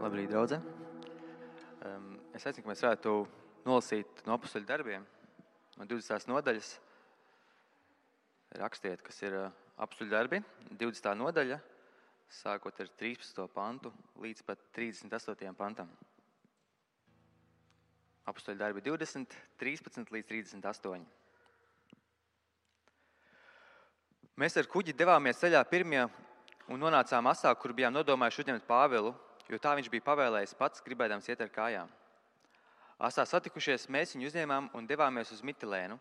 Labrīt, draudze. Es aicinu, ka mēs varētu nolasīt no Apostoļu darbiem, no 20. nodaļas. Rakstiet, kas ir Apostoļu darbi, 20. nodaļa, sākot ar 13. pantu līdz pat 38. pantam. Apostoļu darbi 20, 13 līdz 38. Mēs ar kuģi devāmies ceļā pirmie un nonācām asā, kur bijām nodomājuši uzņemt Pāvilu, jo tā viņš bija pavēlējis pats, gribēdams iet ar kājām. Asā satikušies, mēs viņu uzņēmām un devāmies uz Mitilēnu.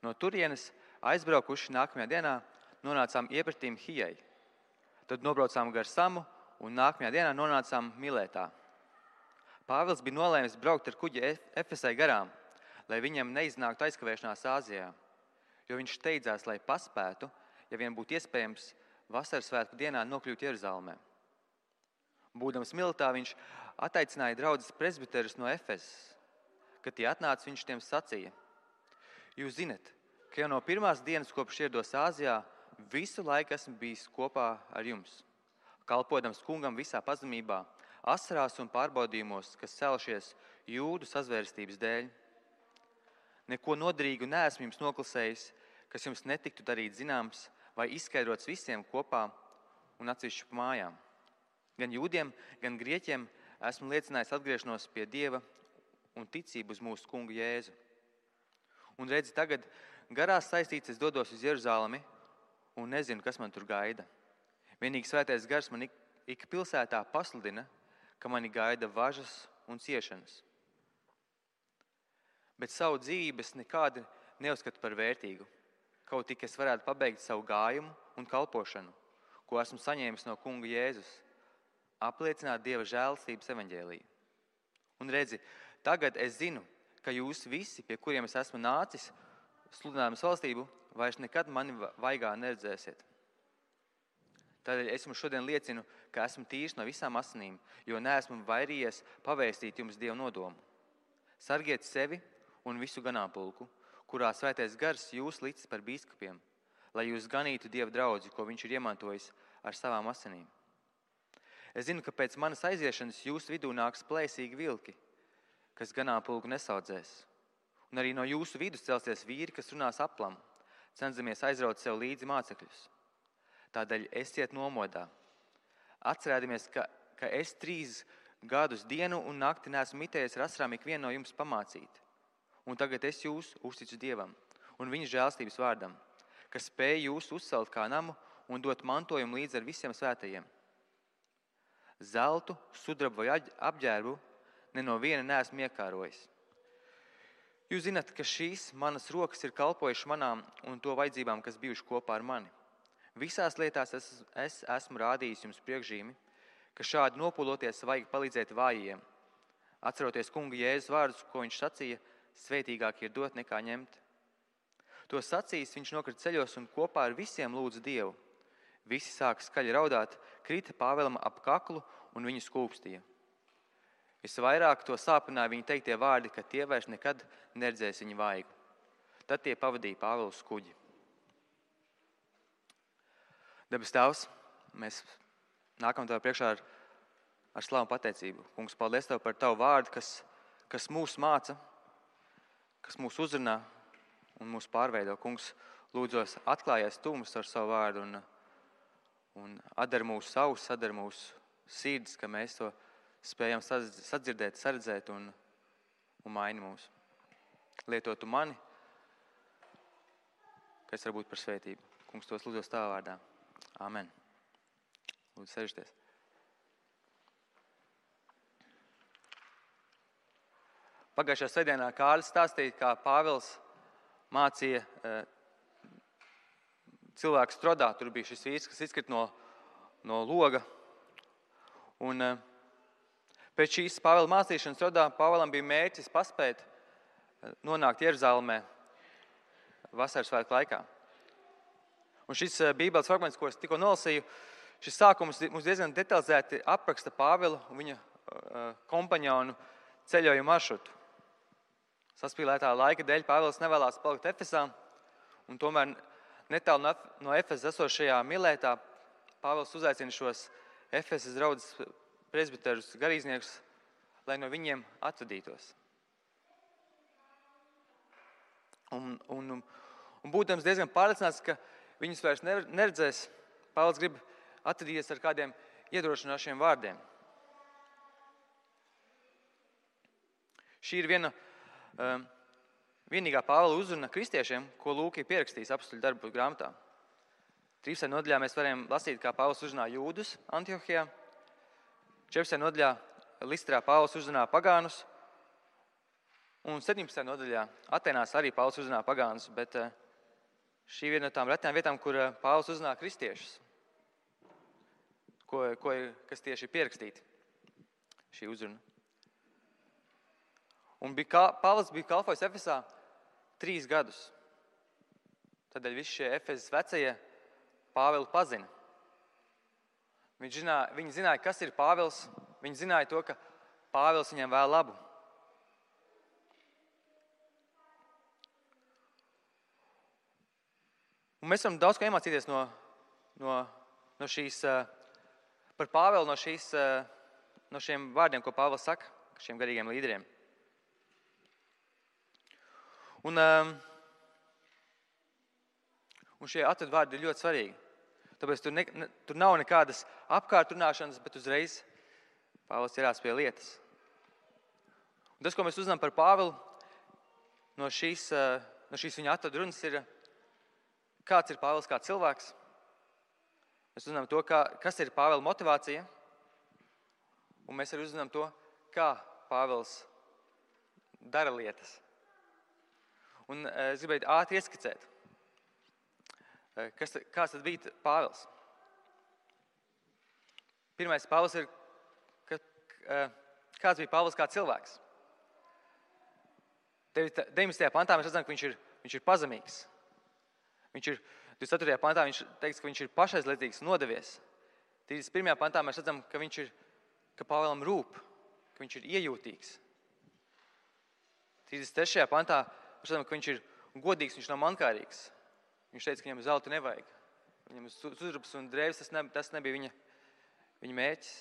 No turienes aizbraukuši nākamajā dienā nonācām iepratīm Hijai. Tad nobraucām gar Samu un nākamajā dienā nonācām Miletā. Pāvils bija nolēmis braukt ar kuģi Efesai garām, lai viņam neiznāktu aizkavēšanās Āzijā, jo viņš steidzās, lai paspētu, ja vien būtu iespējams, vasaras svētku dienā nokļūt Jeruzalemē. Būdams Miletā, viņš ataicināja draudzes presbiterus no Efesas. Kad tie atnāca, viņš tiem sacīja: Jūs zinat, ka jau no pirmās dienas, kopš ierados Āzijā, visu laiku esmu bijis kopā ar jums, kalpodams kungam visā pazemībā, asarās un pārbaudījumos, kas celšies jūdu sazvērstības dēļ. Neko noderīgu neesmu jums noklasējis, kas jums netiktu darīt zināms vai izskaidrots visiem kopā un atsevišķi pa mājām. Gan jūdiem, gan grieķiem esmu liecinājis atgriešanos pie Dieva un ticību uz mūsu kungu Jēzu. Un redzi, tagad garās saistīts es dodos uz Jeruzalemi un nezinu, kas man tur gaida. Vienīgi svētais gars man ik pilsētā pasludina, ka mani gaida važas un ciešanas. Bet savu dzīvību es nekādi neuzskatu par vērtīgu, kaut tik es varētu pabeigt savu gājumu un kalpošanu, ko esmu saņēmis no kunga Jēzus, apliecināt Dieva žēlastības evaņģēliju. Un redzi, tagad es zinu, ka jūs visi, pie kuriem es esmu nācis, sludinājumas valstību, vairs nekad mani vaigā neredzēsiet. Tādēļ es jums šodien liecinu, ka esmu tīrs no visām asinīm, jo neesmu vairījies pavēstīt jums Dievu nodomu. Sargiet sevi un visu ganāmpulku, kurā svētais gars jūs licis par bīskapiem, lai jūs ganītu Dieva draudzi, ko viņš ir iemantojis ar savām asinīm. Es zinu, ka pēc manas aiziešanas jūsu vidū nāks plēsīgi vilki, kas ganāmpulku nesaudzēs. Un arī no jūsu vidus celsies vīri, kas runās aplam, cenzamies aizraut sev līdzi mācekļus. Tādēļ esiet nomodā. Atcerēdamies, ka es 3 gadus dienu un nakti neesmu mitējies ar asarām ikvienu no jums pamācīt. Un tagad es jūs uzticu Dievam un viņa žēlstības vārdam, kas spēj jūs uzcelt kā namu un dot mantojumu līdz ar visiem svētajiem. Zeltu, sudrabu vai apģērbu ne no viena neesmu iekārojis. Jūs zināt, ka šīs manas rokas ir kalpojušas manām un to vajadzībām, kas bijuši kopā ar mani. Visās lietās es esmu rādījis jums priekšzīmi, ka šādi nopūloties vajag palīdzēt vājiem. Atceroties kunga Jēzus vārdus, ko viņš sacīja, svētīgāk ir dot nekā ņemt. To sacījis, viņš nokrita ceļos un kopā ar visiem lūdza Dievu. Visi sāka skaļi raudāt, krita Pāvēlam ap kaklu un viņu skūpstīja. Visvairāk to sāpināja viņa teiktie vārdi, ka tie vairs nekad neredzēs viņu vaigu. Tad tie pavadīja Pāvelu uz kuģi. Debes Tēvs, mēs nākam Tev priekšā ar slavu pateicību. Kungs, paldies Tev par Tavu vārdu, kas mūs māca, kas mūs uzrunā un mūs pārveido. Kungs, lūdzos atklājies Tu mums ar savu vārdu un atdar mūsu savus, atdar mūsu sirdis, ka mēs to spējam sadzirdēt, saredzēt un maini mūs. Lietot Tu mani, kas var būt par svētību. Kungs, tos lūdzos Tavā vārdā. Amen. Lūdzu, sēžieties. Pagājušajā svētdienā Kārlis stāstīja, kā Pāvils mācīja cilvēku Strodā. Tur bija šis vīrs, kas izkrita no loga. Un pēc šīs Pāvela mācīšanas Strodā Pāvelam bija mērķis paspēt nonākt Jeruzalemē vasaras svētku laikā. Un šis bībeles fragments, ko es tikko nolasīju, šis sākums mums diezgan detalizēti apraksta Pāvelu un viņa kompaņonu ceļojumu maršrutu. Saspīlētā laika dēļ Pāvils nevēlās palikt Efesā, un tomēr netālu no Efesas esošajā Miletā Pāvils uzaicina šos Efesas draudzes presbiterus, garīdzniekus, lai no viņiem atvadītos. Un būdams diezgan pārliecināts, ka viņus vairs neredzēs, Pāvils grib atvadīties ar kādiem iedrošinošiem vārdiem. Šī ir vienīgā Pāvila uzruna kristiešiem, ko Lūka ir pierakstījis Apostoļu darbu grāmatā. 13. nodaļā mēs varam lasīt, kā Pāvils uzrunā jūdus Antiohijā. 14. nodaļā Listrā Pāvils uzrunā pagānus. Un 17. nodaļā Atenās arī Pāvils uzrunā pagānus, bet šī viena no tām retām vietām, kur Pāvils uzrunā kristiešus, kas tieši ir pierakstīti šī uzruna. Un Pāvils bija kalpojis Efesā 3 gadus. Tādēļ visi šie Efesas vecie Pāvilu pazina. Viņi zināja, kas ir Pāvils. Viņi zināja to, ka Pāvils viņiem vēl labu. Un mēs varam daudz ko iemācīties no šīs, par Pāvilu, no šiem vārdiem, ko Pāvils saka, šiem garīgiem līderiem. Un šie atvadvārdi ir ļoti svarīgi. Tāpēc tur nav nekādas apkārtrunāšanas, bet uzreiz Pāvils ķerās pie lietas. Un tas, ko mēs uzzinām par Pāvilu, no šīs viņa atvadrunas ir, kāds ir Pāvils kā cilvēks. Mēs uzzinām to, kas ir Pāvila motivācija, un mēs arī uzzinām to, kā Pāvils dara lietas. Un es gribēju ātri ieskicēt, kāds tad bija Pāvils. Pirmais Pāvils ir, kāds bija Pāvils kā cilvēks. 19. pantā mēs redzam, ka viņš ir pazemīgs. 24. pantā viņš teiks, ka viņš ir pašaizliedzīgs, nodevies. 31. pantā mēs redzam, ka Pāvilam rūp, ka viņš ir iejūtīgs. 33. pantā mēs redzam, ka viņš ir godīgs, viņš nav mankārīgs. Viņš teica, ka viņam zelta nevajag. Viņam sudrabs un drēvis, tas nebija viņa mērķis.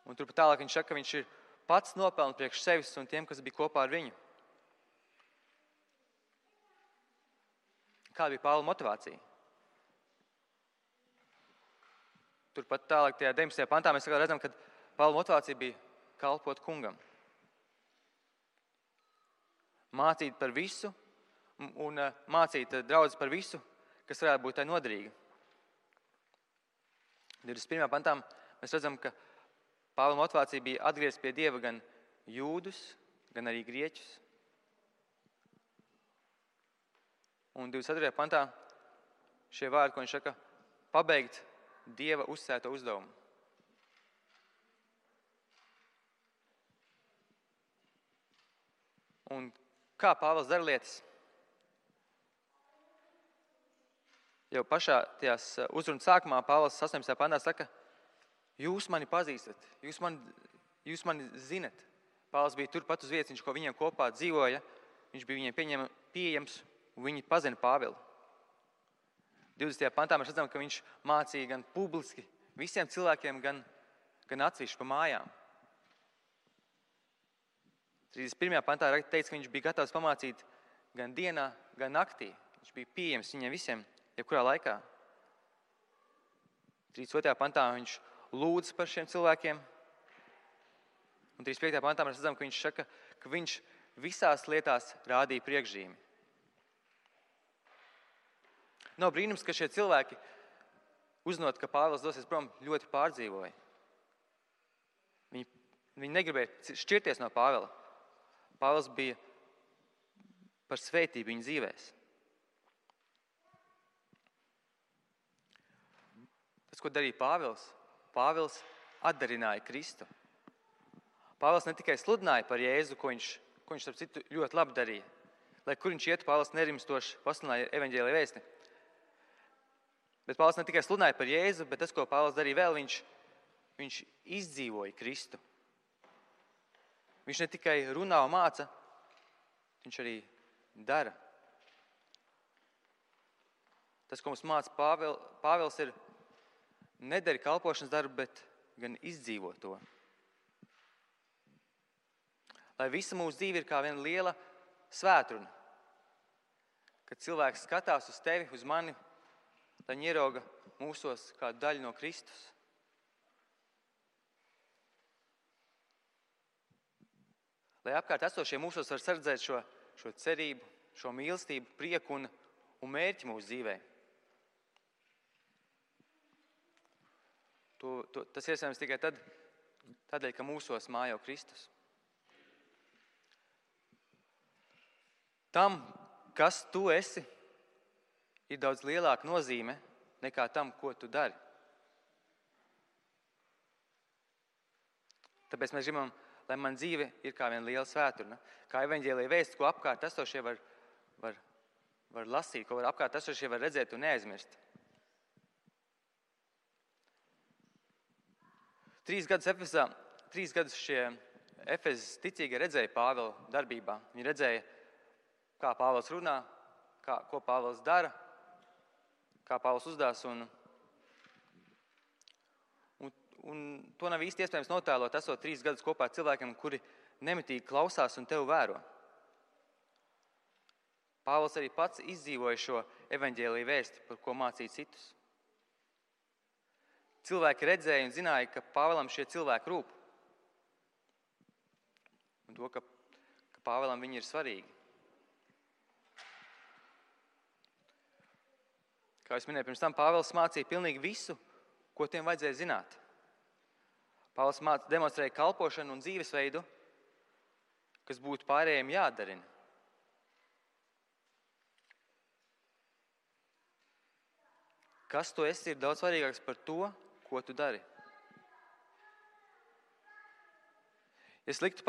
Un turpat tālāk viņš saka, ka viņš ir pats nopelna priekš sevis un tiem, kas bija kopā ar viņu. Kāda bija Pāvila motivācija? Turpat tālāk tajā 19. pantā mēs redzam, ka Pāvila motivācija bija kalpot kungam. Mācīt par visu un mācīt draudzes par visu, kas varētu būt tai noderīga. 21. pantā mēs redzam, ka Pāvila motivācija bija atgriezt pie Dieva gan jūdus, gan arī grieķus. Un 24. pantā šie vārdi, ko viņš saka, pabeigt Dieva uzsēto uzdevumu. Un kā Pāvils dara lietas? Jau pašā tajās uzrunas sākumā Pāvils 18. pantā saka, jūs mani pazīstat, jūs mani zinat. Pāvils bija turpat uz vietas, viņš ko viņiem kopā dzīvoja, viņš bija viņiem pieejams un viņi pazina Pāvilu. 20. pantā mēs redzam, ka viņš mācīja gan publiski visiem cilvēkiem, gan atsevišķi pa mājām. 31. pantā teica, ka viņš bija gatavs pamācīt gan dienā, gan naktī. Viņš bija pieejams viņiem visiem, jebkurā laikā. 32. pantā viņš lūdz par šiem cilvēkiem. Un 35. pantā mēs redzam, ka viņš saka, ka viņš visās lietās rādīja priekšzīmi. Nav brīnums, ka šie cilvēki, uzzinot, ka Pāvils dosies prom, ļoti pārdzīvoja. Viņi negribēja šķirties no Pāvila. Pāvils bija par svētību viņu dzīvēs. Tas, ko darīja Pāvils, Pāvils atdarināja Kristu. Pāvils ne tikai sludināja par Jēzu, ko viņš starp citu ļoti labi darīja. Lai kur viņš ietu, Pāvils nerimstoši pasludināja evaņģēlija vēsti. Bet Pāvils ne tikai sludināja par Jēzu, bet tas, ko Pāvils darīja vēl, viņš izdzīvoja Kristu. Viņš ne tikai runā un māca, viņš arī dara. Tas, ko mums māca Pāvils, ir nedari kalpošanas darbu, bet gan izdzīvo to. Lai visa mūsu dzīve ir kā viena liela svētruna, kad cilvēks skatās uz tevi, uz mani, lai viņi ierauga mūsos kādu daļu no Kristus. Lai apkārt esošie mūsos var sardzēt šo cerību, šo mīlestību, prieku un mērķi mūsu dzīvē. Tas iespējams tikai tādēļ, ka mūsos mājo Kristus. Tam, kas tu esi, ir daudz lielāka nozīme nekā tam, ko tu dari. Tāpēc mēs gribam, lai man dzīve ir kā viena liela svēturna, kā evaņģēlija vēsts, ko apkārt esošie var lasīt, ko apkārt esošie var redzēt un neaizmirst. 3 gadus šie Efezas ticīgie redzēja Pāvila darbībā. Viņi redzēja, kā Pāvils runā, ko Pāvils dara, kā Pāvils uzdās. Un to nav īsti iespējams notēlot, esot 3 gadus kopā ar cilvēkiem, kuri nemitīgi klausās un tevi vēro. Pāvils arī pats izdzīvoja šo evaņģēlija vēsti, par ko mācīja citus. Cilvēki redzēja un zināja, ka Pāvilam šie cilvēki rūp. Un to, ka Pāvilam viņi ir svarīgi. Kā es minēju, pirms tam Pāvils mācīja pilnīgi visu, ko tiem vajadzēja zināt. Pāvils demonstrēja kalpošanu un dzīvesveidu, kas būtu pārējiem jādarina. Kas tu esi, ir daudz svarīgāks par to, ko tu dari. Es liktu jums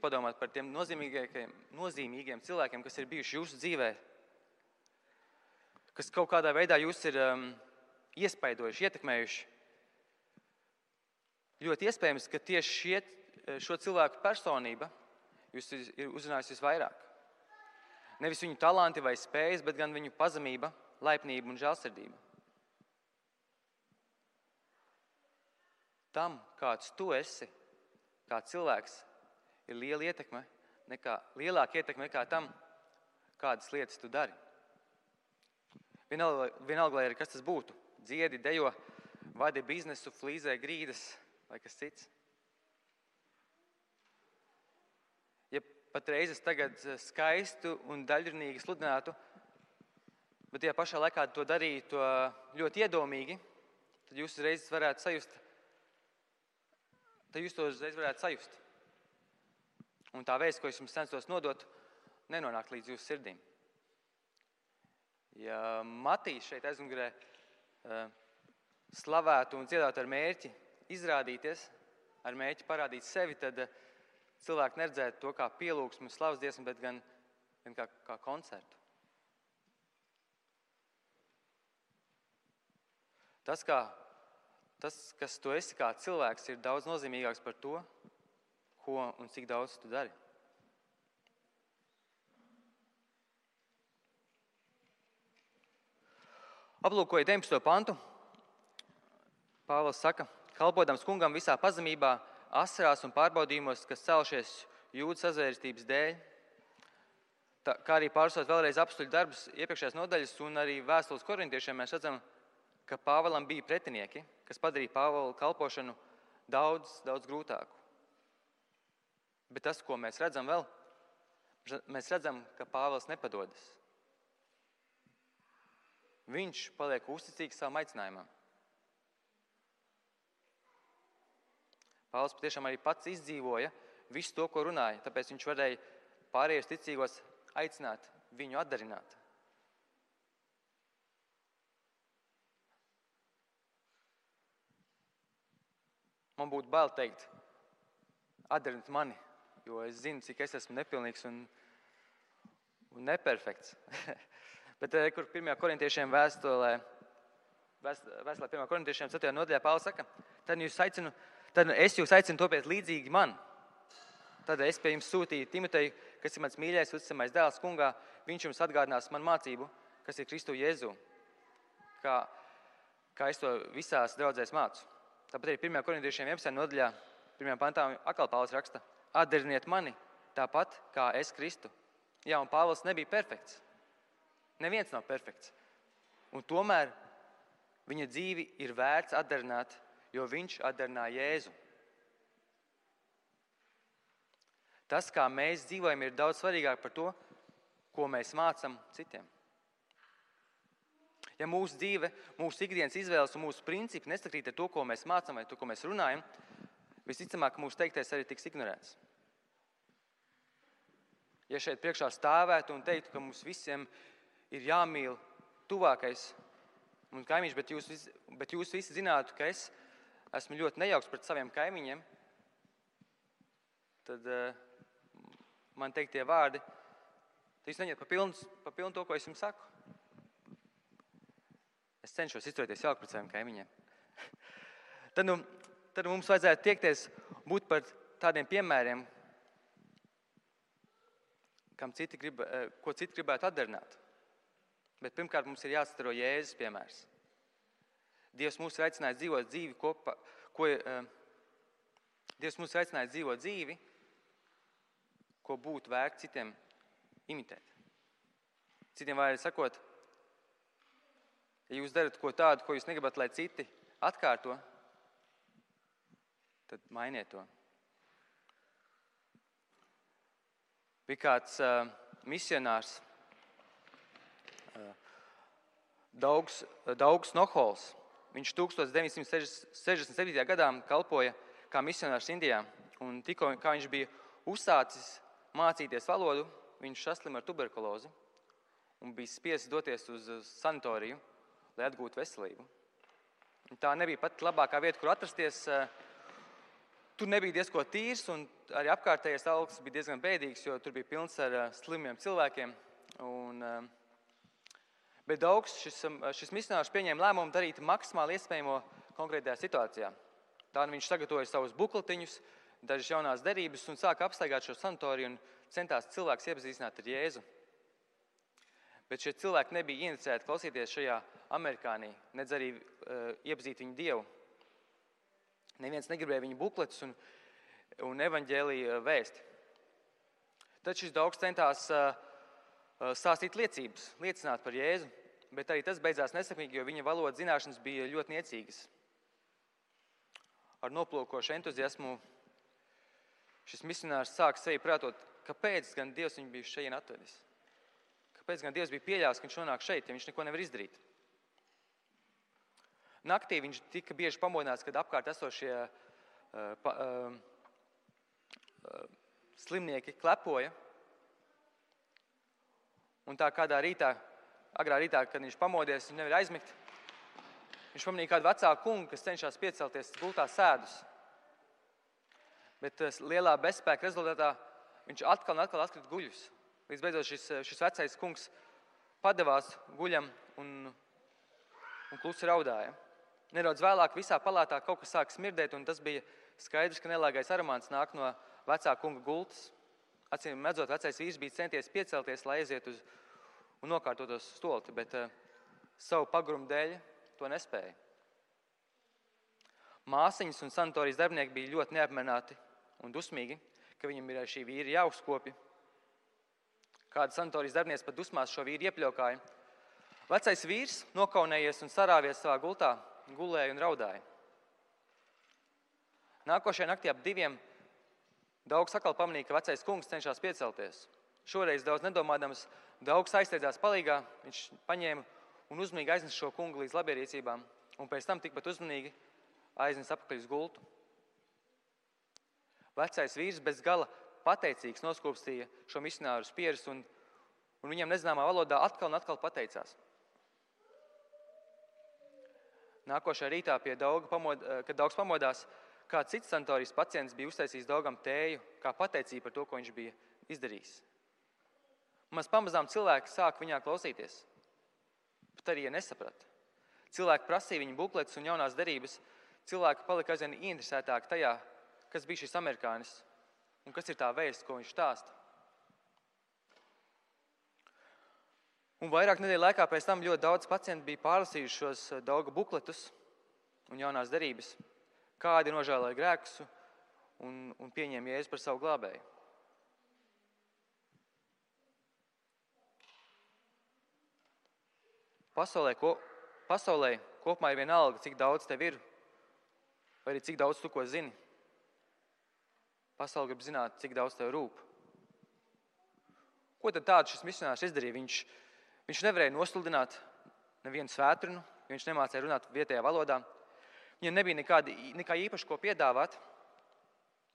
padomāt par tiem nozīmīgiem cilvēkiem, kas ir bijuši jūsu dzīvē, kas kaut kādā veidā jūs ir iespaidojuši, ietekmējuši. Ļoti iespējams, ka tieši šo cilvēku personība jūs ir uzrunājusi visvairāk. Nevis viņu talanti vai spējas, bet gan viņu pazemība, laipnība un žēlsirdība. Tam, kāds tu esi, kā cilvēks, ir lielāka ietekme nekā tam, kādas lietas tu dari. Vienalga, lai arī kas tas būtu. Dziedi, dejo, vadi biznesu, flīzē grīdas vai kas cits. Ja patreiz es tagad skaistu un daļrunīgi sludinātu, bet tajā pašā laikā to darītu ļoti iedomīgi, tad jūs uzreiz varētu sajust. Un tā vēsts, ko es jums censos nodot, nenonāk līdz jūsu sirdīm. Ja Matīs šeit aizmugurē slavētu un dziedātu ar mērķi izrādīties, ar mērķi parādīt sevi, tad cilvēki neredzētu to kā pielūgsmu, slavas dziesmu, bet gan kā koncertu. Tas, kas tu esi kā cilvēks, ir daudz nozīmīgāks par to, ko un cik daudz tu dari. Aplūkoju 19. pantu. Pāvils saka, kalpodams kungam visā pazemībā, asarās un pārbaudījumos, kas celšies jūdu sazvērstības dēļ, kā arī pārstot vēlreiz apstuļu darbus iepriekšējās nodaļas un arī vēstules korintiešiem, mēs redzam, ka Pāvilam bija pretinieki, kas padarīja Pāvila kalpošanu daudz grūtāku. Bet tas, ko mēs redzam vēl, mēs redzam, ka Pāvils nepadodas. Viņš paliek uzticīgs savam aicinājumam. Pāvils patiešām arī pats izdzīvoja visu to, ko runāja, tāpēc viņš varēja pārējos ticīgos aicināt viņu atdarināt. Man būtu bail teikt, atdarināt mani, jo es zinu, cik es esmu nepilnīgs un neperfekts. Bet, kur 1. korintiešiem vēstulē 1. korintiešiem 4. nodaļā Pāvils saka, tad es jūs aicinu topiet līdzīgi man. Tad es pie jums sūtīju Timoteju, kas ir mans mīļais, uzticamais dēls kungā, viņš jums atgādinās man mācību, kas ir Kristu Jēzu. Kā kā es to visās draudzēs mācu. Tāpat arī 1. korintiešiem 11. nodaļā, 1. pantā atkal Pāvils raksta: atdariniet mani tāpat, kā es Kristu. Jā, un Pāvils nebija perfekts. Neviens nav perfekts. Un tomēr viņa dzīvi ir vērts atdarināt, jo viņš atdarināja Jēzu. Tas, kā mēs dzīvojam, ir daudz svarīgāk par to, ko mēs mācam citiem. Ja mūsu dzīve, mūsu ikdienas izvēles un mūsu principi nesakrīt ar to, ko mēs mācam vai to, ko mēs runājam, visticamāk, mūsu teiktais arī tiks ignorēts. Ja šeit priekšā stāvētu un teiktu, ka mums visiem ir jāmīl tuvākais un kaimiņš, bet jūs visi zinātu, ka es esmu ļoti nejauks pret saviem kaimiņiem, tad man teiktie vārdi, tad jūs neņemat pa pilnu to, ko es jums saku. Es cenšos izturēties jauki pret saviem kaimiņiem. Tad mums vajadzētu tiekties būt par tādiem piemēriem, ko citi gribētu atdarināt. Bet pirmkārt mums ir jāatstaro Jēzus piemērs. Dievs mūs ir aicinājis dzīvot dzīvi kopā, Dievs mūs ir aicinājis dzīvot dzīvi, ko būtu vērts citiem imitēt. Citiem vārdi sakot, ja jūs darat ko tādu, ko jūs negribat, lai citi atkārto, tad mainiet to. Bija kāds misionārs, Daugs Nohols. Viņš 1967. gadā kalpoja kā misionārs Indijā. Un tikko, kā viņš bija uzsācis mācīties valodu, viņš saslima ar tuberkulozi un bija spiests doties uz sanatoriju, lai atgūtu veselību. Un tā nebija pat labākā vieta, kur atrasties. Tur nebija diezko tīrs, un arī apkārtējais augsts bija diezgan bēdīgs, jo tur bija pilns ar slimiem cilvēkiem. Bet Daugs, šis misionārs pieņēma lēmumu darīt maksimāli iespējamo konkrētajā situācijā. Tā viņš sagatavoja savus bukletiņus, dažas jaunās derības un sāka apstaigāt šo sanatoriju un centās cilvēks iepazīstināt ar Jēzu. Bet šie cilvēki nebija inicēti klausīties šajā amerikānī, nedz arī iepazīt viņu Dievu. Neviens negribēja viņu bukletus un evaņģēlija vēsti. Tad šis Daugs centās stāstīt liecības, liecināt par Jēzu, bet arī tas beidzās nesekmīgi, jo viņa valodas zināšanas bija ļoti niecīgas. Ar noplūkošu entuziasmu šis misionārs sāka sevi prātot, kāpēc gan Dievs viņu bija šeit atvedis. Kāpēc gan Dievs bija pieļāvis, ka viņš nonāk šeit, ja viņš neko nevar izdarīt. Naktī viņš tika bieži pamodināts, kad apkārt esošie slimnieki klepoja. Un tā kādā rītā, agrā rītā, kad viņš pamodies, viņš nevar aizmigt, viņš pamanīja kādu vecāku kungu, kas cenšas piecelties gultā sēdus. Bet lielā bezspēka rezultātā viņš atkal atkrita guļus. Līdz beidzot šis vecais kungs padevās guļam un klusi raudāja. Nedaudz vēlāk visā palātā kaut kas sāk smirdēt, un tas bija skaidrs, ka nelāgais aromāts nāk no vecā kunga gultas. Acīm redzot, vecais vīrs bija centies piecelties, lai aiziet un nokārtotos stolti, bet savu pagrumu dēļ to nespēja. Māsiņas un sanatorijas darbinieki bija ļoti neapmierināti un dusmīgi, ka viņam ir šī vīra jāuzkopja. Kāda sanatorijas darbinieks pat dusmās šo vīru iepļaukāja. Vecais vīrs, nokaunējies un sarāvies savā gultā, gulēja un raudāja. Nākošajā naktī ap 2 Daugs atkal pamanīja, ka vecais kungs cenšas piecelties. Šoreiz daudz nedomādams, Daugs aizsteidzās palīgā, viņš paņēma un uzmanīgi aiznesa šo kungu līdz labierīcībām, un pēc tam tikpat uzmanīgi aiznesa apakaļ uz gultu. Vecais vīrs bez gala pateicīgs noskūpstīja šo misionāru uz pieres, un viņam nezināmā valodā atkal un atkal pateicās. Nākošajā rītā, kad Daugs pamodās, kāds cits sanatorijas pacients bija uztaisījis Daugam tēju, kā pateicību par to, ko viņš bija izdarījis. Maz pamazām cilvēki sāk viņā klausīties, bet arī nesaprata. Cilvēki prasīja viņa bukletus un jaunās derības. Cilvēki palika aizvien ieinteresētāki tajā, kas bija šis amerikānis un kas ir tā vēsts, ko viņš stāsta. Un vairāk nedēļu laikā pēc tam ļoti daudz pacienti bija pārlasījuši šos Dauga bukletus un jaunās derības, kādi nožēloja grēkus un pieņēma Jēzu par savu glābēju. Pasaulē kopumā ir vienalga, cik daudz tev ir, vai arī cik daudz tu ko zini. Pasaule grib zināt, cik daudz tev rūp. Ko tad tādu šis misionārs izdarīja? Viņš nevarēja nosludināt nevienu svētdienu, jo viņš nemācīja runāt vietējā valodā. Viņam nebija nekā īpaši ko piedāvāt.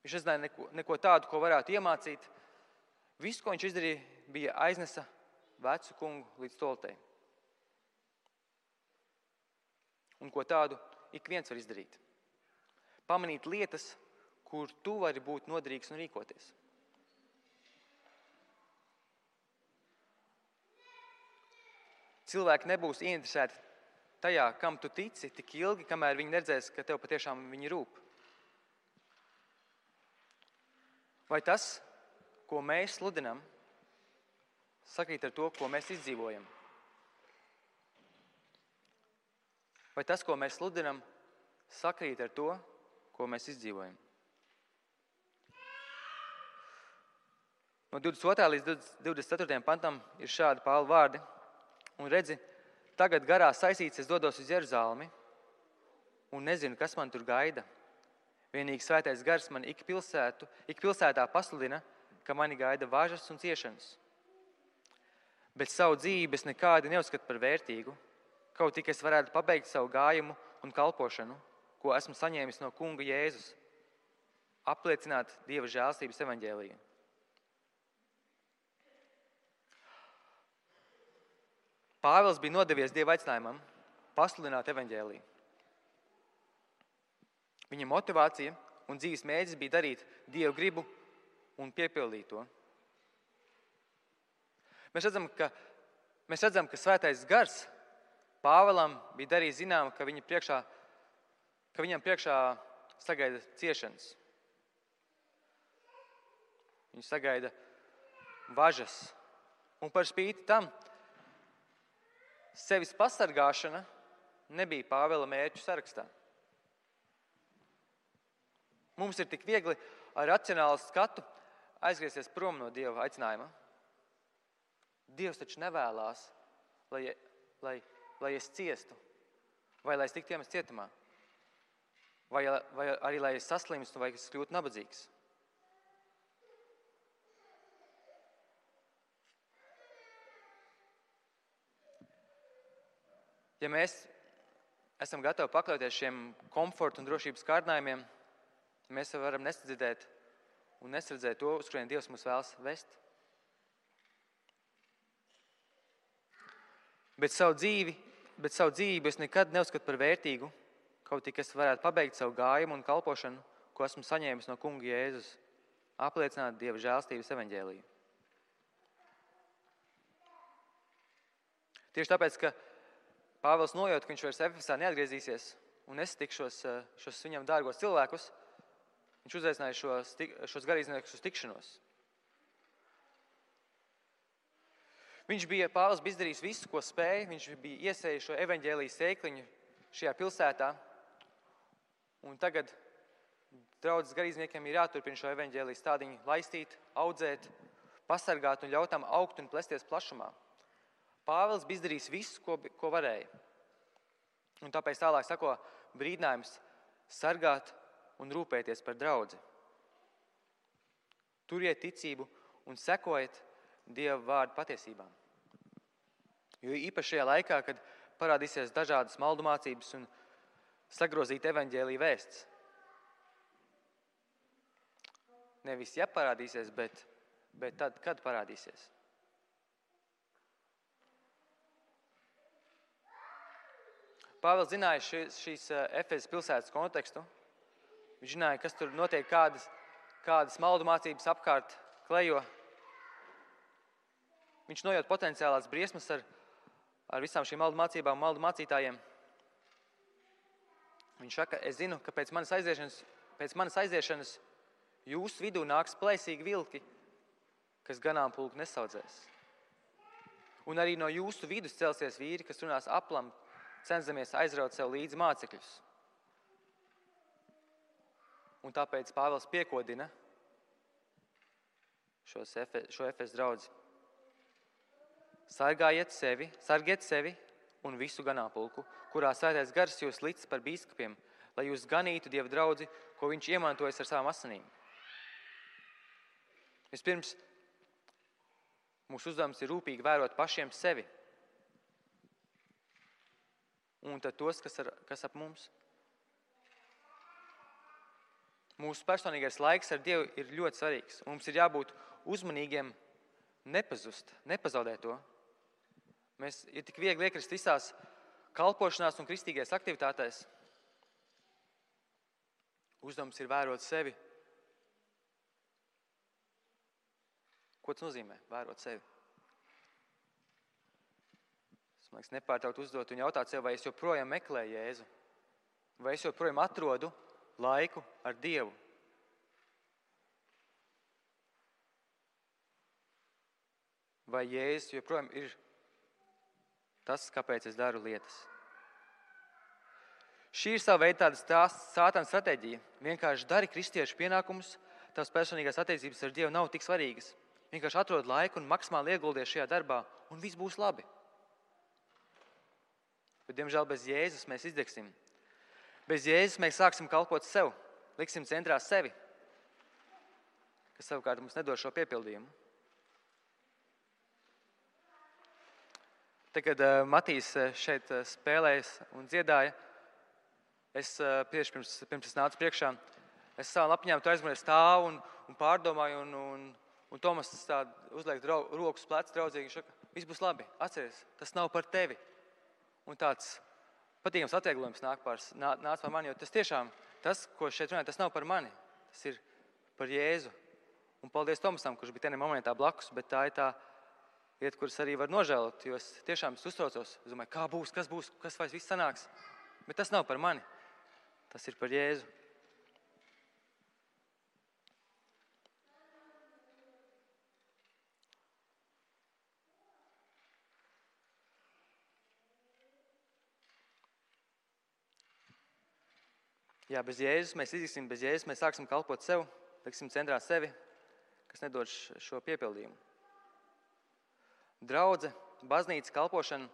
Viņš nezināja neko tādu, ko varētu iemācīt. Viss, ko viņš izdarīja, bija aiznesa vecu kungu līdz toltei. Un ko tādu ik viens var izdarīt. Pamanīt lietas, kur tu vari būt noderīgs un rīkoties. Cilvēki nebūs ieinteresēti tajā, kam tu tici, tik ilgi, kamēr viņi neredzēs, ka tev patiešām viņi rūp. Vai tas, ko mēs sludinam, sakrīt ar to, ko mēs izdzīvojam? Vai tas, ko mēs sludinam, sakrīt ar to, ko mēs izdzīvojam? No 22. līdz 24. pantam ir šādi Pāvila vārdi. Un redzi, tagad garā saistīts es dodos uz Jeruzalemi un nezinu, kas man tur gaida. Vienīgi svētais gars man ik pilsētā pasludina, ka mani gaida važas un ciešanas. Bet savu dzīvi es nekādi neuzskatu par vērtīgu, kaut tik es varētu pabeigt savu gājumu un kalpošanu, ko esmu saņēmis no kunga Jēzus, apliecināt Dieva žēlstības evaņģēliju. Pāvils bija nodevies Dieva aicinājumam pasludināt evaņģēliju. Viņa motivācija un dzīves mērķis bija darīt Dieva gribu un piepildīt to. Mēs redzam, ka svētais gars Pāvilam bija darījis zinām, ka viņam priekšā sagaida ciešanas. Viņu sagaida važas. Un par spīti tam, sevis pasargāšana nebija Pāvila mērķu sarakstā. Mums ir tik viegli ar racionālu skatu aizgriezties prom no Dieva aicinājuma. Dievs taču nevēlās, lai es ciestu, vai lai es tiktu iemests cietumā, vai arī lai es saslimstu, vai es kļūtu nabadzīgs. Ja mēs esam gatavi pakļauties šiem komforta un drošības kārdinājumiem, mēs varam nesadzirdēt un nesardzēt to, uz kurien Dievs mūs vēlas vest. Bet savu dzīvību es nekad neuzskatu par vērtīgu, kaut tik es varētu pabeigt savu gājumu un kalpošanu, ko esmu saņēmis no kunga Jēzus, apliecināt Dieva žēlstības evaņģēliju. Tieši tāpēc, ka Pāvils nojūt, ka viņš vairs Efesā neatgriezīsies un nesatikšos šos viņam dārgos cilvēkus, viņš uzaicināja šos garīdzniekus uz tikšanos. Pāvils bija izdarījis visu, ko spēja, viņš bija iesējis šo evaņģēlijas sēkliņu šajā pilsētā, un tagad draudzes garīdzniekiem ir jāturpina šo evaņģēlijas stādiņu laistīt, audzēt, pasargāt un ļaut tam augt un plesties plašumā. Pāvils bija izdarījis visu, ko varēja. Un tāpēc tālāk sako brīdinājums sargāt un rūpēties par draudzi. Turiet ticību un sekojiet Dieva vārdu patiesībām. Jo īpaši šajā laikā, kad parādīsies dažādas maldu mācības un sagrozīta evaņģēlija vēsts. Nevis ja parādīsies, bet tad, kad parādīsies. Pāvils zināja šīs Efezas pilsētas kontekstu. Viņš zināja, kas tur notiek, kādas maldu mācības apkārt klejo. Viņš nojūt potenciālās briesmas ar visām šīm maldu mācībām, maldu mācītājiem. Viņš saka, es zinu, ka pēc manas aiziešanas jūsu vidū nāks plēsīgi vilki, kas ganāmpulku nesaudzēs. Un arī no jūsu vidus celsies vīri, kas runās aplam, cenzamies aizraut sev līdzi mācekļus. Un tāpēc Pāvils piekodina šo Efesu draudzi. Sargiet sevi un visu ganāmpulku, kurā Svētais Gars jūs licis par bīskapiem, lai jūs ganītu Dieva draudzi, ko viņš iemantojas ar savām asinīm. Vispirms, mūsu uzdevums ir rūpīgi vērot pašiem sevi. Un tad tos, kas ap mums. Mūsu personīgais laiks ar Dievu ir ļoti svarīgs. Mums ir jābūt uzmanīgiem, nepazaudēt to. Mēs ir tik viegli iekrist visās kalpošanās un kristīgajās aktivitātēs. Uzdevums ir vērot sevi. Ko tas nozīmē? Vērot sevi. Es man liekas nepārtraukt uzdot un jautāt sev, vai es joprojām meklēju Jēzu? Vai es joprojām atrodu laiku ar Dievu? Vai Jēzus joprojām ir tas, kāpēc es daru lietas? Šī ir sava veida tāda sātana stratēģija. Vienkārši dari kristiešu pienākumus, tavas personīgās attiecības ar Dievu nav tik svarīgas. Vienkārši atrod laiku un maksimāli ieguldies šajā darbā, un viss būs labi. Bet, diemžēl, bez Jēzus mēs izdegsim. Bez Jēzus mēs sāksim kalpot sev, liksim centrā sevi, kas savukārt mums nedod šo piepildījumu. Tad, kad Matīs šeit spēlējas un dziedāja, es tieši pirms es nācu priekšā, es savām lapiņām tu aizmirsu stāvu un pārdomāju, un Tomas tā uzliek rokas plecs draudzīgi, viņš saka, viss būs labi, atceries, tas nav par tevi. Un tāds patīkams atvieglojums nāca par mani, jo tas tiešām, tas, ko šeit runāju, tas nav par mani, tas ir par Jēzu. Un paldies Tomasam, kurš bija tenī momentā blakus, bet tā ir tā lieta, kuras arī var nožēlot, jo es tiešām uztraucos. Es domāju, kā būs, kas vairs viss sanāks. Bet tas nav par mani. Tas ir par Jēzu. Jā, bez Jēzus mēs izliksim, bez Jēzus mēs sāksim kalpot sev, liksim centrā sevi, kas nedod šo piepildījumu. Draudze, baznīca, kalpošana,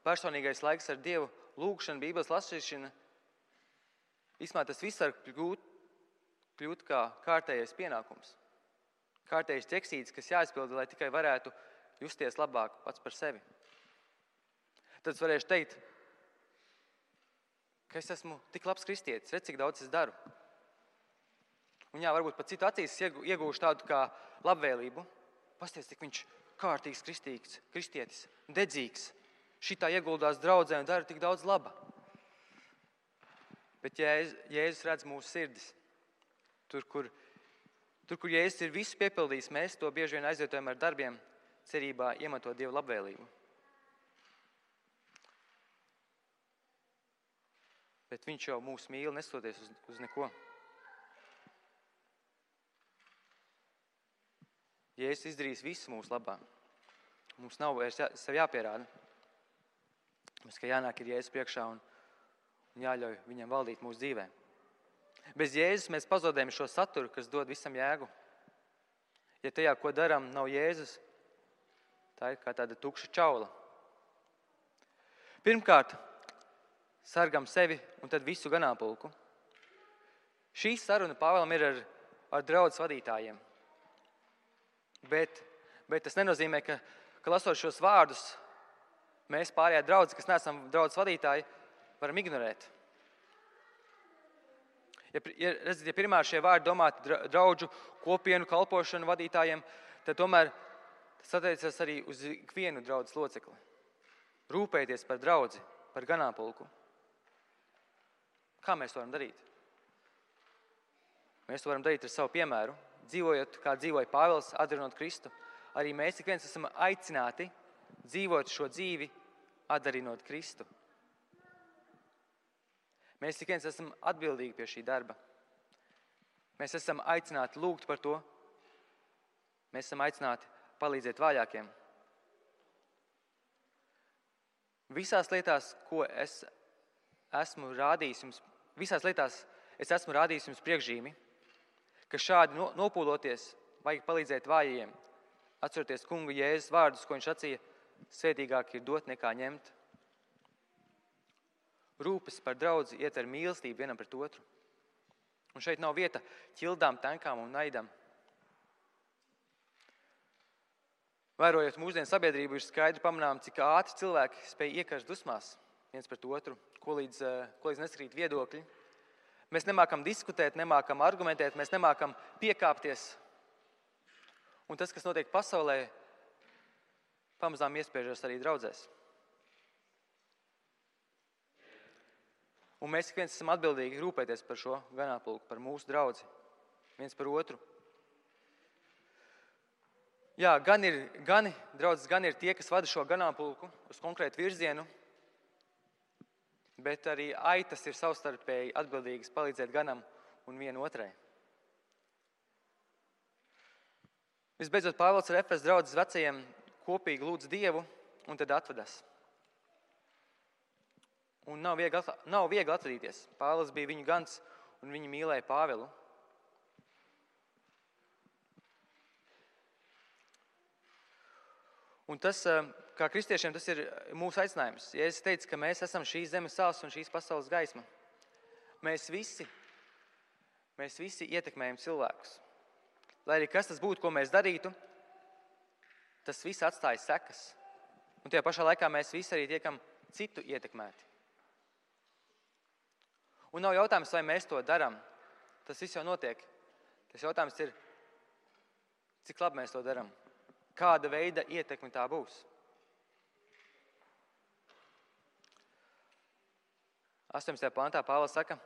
personīgais laiks ar Dievu, lūgšana, Bībeles lasīšana. Īstumā tas viss var kļūt kā kārtējais pienākums. Kārtējais ķeksītis, kas jāizpilda, lai tikai varētu justies labāk pats par sevi. Tad es varēšu teikt, ka es esmu tik labs kristietis, redz, cik daudz es daru. Un jā, varbūt pat citu acīs iegūšu tādu kā labvēlību. Pasties, cik viņš kārtīgs kristietis, dedzīgs. Šitā ieguldās draudzē un dara tik daudz laba. Bet Jēzus redz mūsu sirdis. Tur, kur Jēzus ir visu piepildījis, mēs to bieži vien aizvietojam ar darbiem, cerībā iemantot Dievu labvēlību. Bet viņš jau mūs mīl, nestoties uz neko. Jēzus izdarīs visu mūsu labā. Mums nav vairs sev jāpierāda. Mums kā jānāk ir Jēzus priekšā un jāļauj viņam valdīt mūsu dzīvē. Bez Jēzus mēs pazaudējam šo saturu, kas dod visam jēgu. Ja tajā, ko darām, nav Jēzus, tā ir kā tāda tukša čaula. Pirmkārt, sargam sevi un tad visu ganāmpulku. Šī saruna Pāvēlam ir ar draudzes vadītājiem. Bet tas nenozīmē, ka lasot šos vārdus, mēs pārējā draudze, kas neesam draudzes vadītāji, varam ignorēt. Ja pirmā šie vārdi domāti draudžu kopienu kalpošanu vadītājiem, tad tomēr tas attiecas arī uz ikvienu draudzes locekli. Rūpēties par draudzi, par ganāmpulku. Kā mēs to varam darīt? Mēs to varam darīt ar savu piemēru. Dzīvojot, kā dzīvoja Pāvils, atdarinot Kristu, arī mēs ik viens esam aicināti dzīvot šo dzīvi, atdarinot Kristu. Mēs ik viens esam atbildīgi pie šī darba. Mēs esam aicināti lūgt par to. Mēs esam aicināti palīdzēt vājākiem. Visās lietās, ko es esmu rādījis jums, priekšzīmi, ka šādi nopūloties vajag palīdzēt vājajiem, atceroties kunga Jēzus vārdus, ko viņš sacīja, svētīgāk ir dot nekā ņemt. Rūpes par draudzi ietver mīlestību vienam pret otru. Un šeit nav vieta ķildām, tenkām un naidam. Vērojot mūsdienu sabiedrību, ir skaidri pamanām, cik ātri cilvēki spēj iekarst dusmās viens pret otru, ko līdz neskrīt viedokļi. Mēs nemākam diskutēt, nemākam argumentēt, mēs nemākam piekāpties. Un tas, kas notiek pasaulē, pamazām iespiežas arī draudzēs. Un mēs ik viens esam atbildīgi rūpēties par šo ganāmpulku, par mūsu draudzi, viens par otru. Jā, gan ir tie, kas vada šo ganāmpulku uz konkrētu virzienu, bet arī aitas ir savstarpēji atbildīgas palīdzēt ganam un vienu otrai. Visbeidzot, Pāvils ar Efesu draudzes vecajiem kopīgi lūdz Dievu un tad atvedās. Un nav viegli atvadīties. Pāvils bija viņu gans un viņi mīlēja Pāvilu. Un tas, kā kristiešiem, tas ir mūsu aicinājums. Jēzus teica, ka mēs esam šīs zemes sāls un šīs pasaules gaisma. Mēs visi ietekmējam cilvēkus. Lai arī kas tas būtu, ko mēs darītu, tas viss atstāja sekas. Un tajā pašā laikā mēs visi arī tiekam citu ietekmēti. Un nav jautājums, vai mēs to darām. Tas viss jau notiek. Tas jautājums ir, cik labi mēs to darām. Kāda veida ietekme tā būs. 18. pantā Pāvils saka,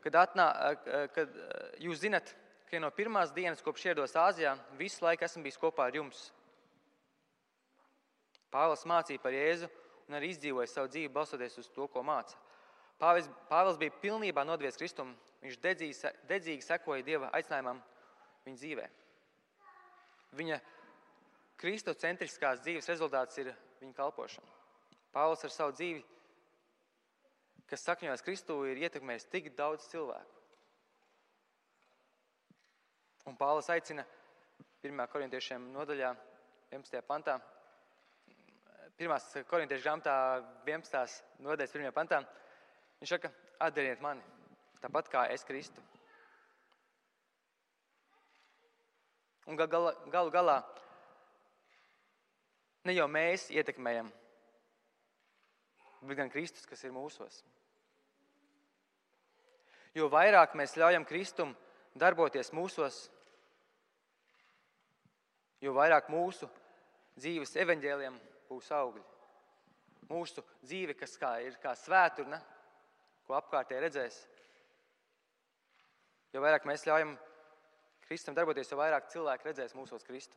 kad jūs zinat, ka no pirmās dienas, kopš ierados Āzijā, visu laiku esmu bijis kopā ar jums. Pāvils mācīja par Jēzu un arī izdzīvoja savu dzīvi balstoties uz to, ko māca. Pāvils bija pilnībā nodvies Kristumu. Viņš dedzīgi sekoja Dieva aicinājumam viņa dzīvē. Viņa kristocentriskās dzīves rezultāts ir viņa kalpošana. Pāvils ar savu dzīvi, kas sakņojas Kristū, ir ietekmējis tik daudz cilvēku. Un Pāvils aicina 1. korintiešiem nodaļā 11. pantā, 1. korintiešu grāmatā 11. nodaļas 1. pantā, viņš saka, atdariet mani, tāpat kā es Kristu. Un galu galā ne jau mēs ietekmējam, bet gan Kristus, kas ir mūsos. Jo vairāk mēs ļaujam Kristum darboties mūsos, jo vairāk mūsu dzīves evaņģēliem būs augļi. Mūsu dzīve, kas ir kā svēturne, ko apkārtēji redzēs. Jo vairāk mēs ļaujam Kristum darboties, jo vairāk cilvēki redzēs mūsos Kristu.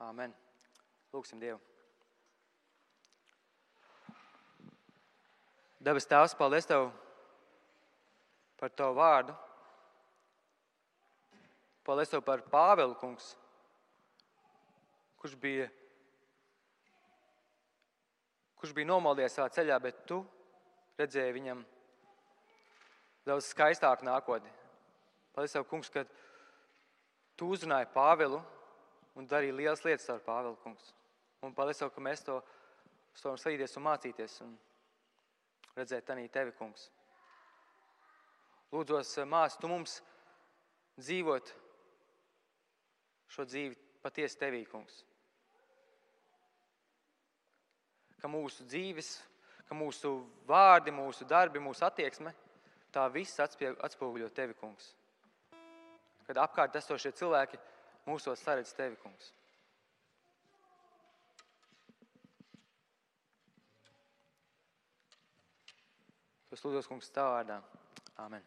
Āmen. Lūksim Dievu. Debes Tēvs, paldies Tev par Tavu vārdu. Paldies Tev par Pāvilu, kungs, kurš bija nomaldies savā ceļā, bet Tu redzēji viņam daudz skaistāku nākotni. Paldies Tev, kungs, ka Tu uzrunāji Pāvilu un darīji lielas lietas ar Pāvilu, kungs. Un paldies Tev, ka mēs to varam sadīties un mācīties un redzēt tanī Tevi, kungs. Lūdzos, māci, Tu mums dzīvot šo dzīvi patiesi Tevī, kungs. Ka mūsu dzīves, ka mūsu vārdi, mūsu darbi, mūsu attieksme, tā viss atspoguļo Tevi, kungs. Kad apkārt esošie cilvēki mūsos saredz Tevi, kungs. Es lūdzos, kungs, Tavā vārdā. Āmen.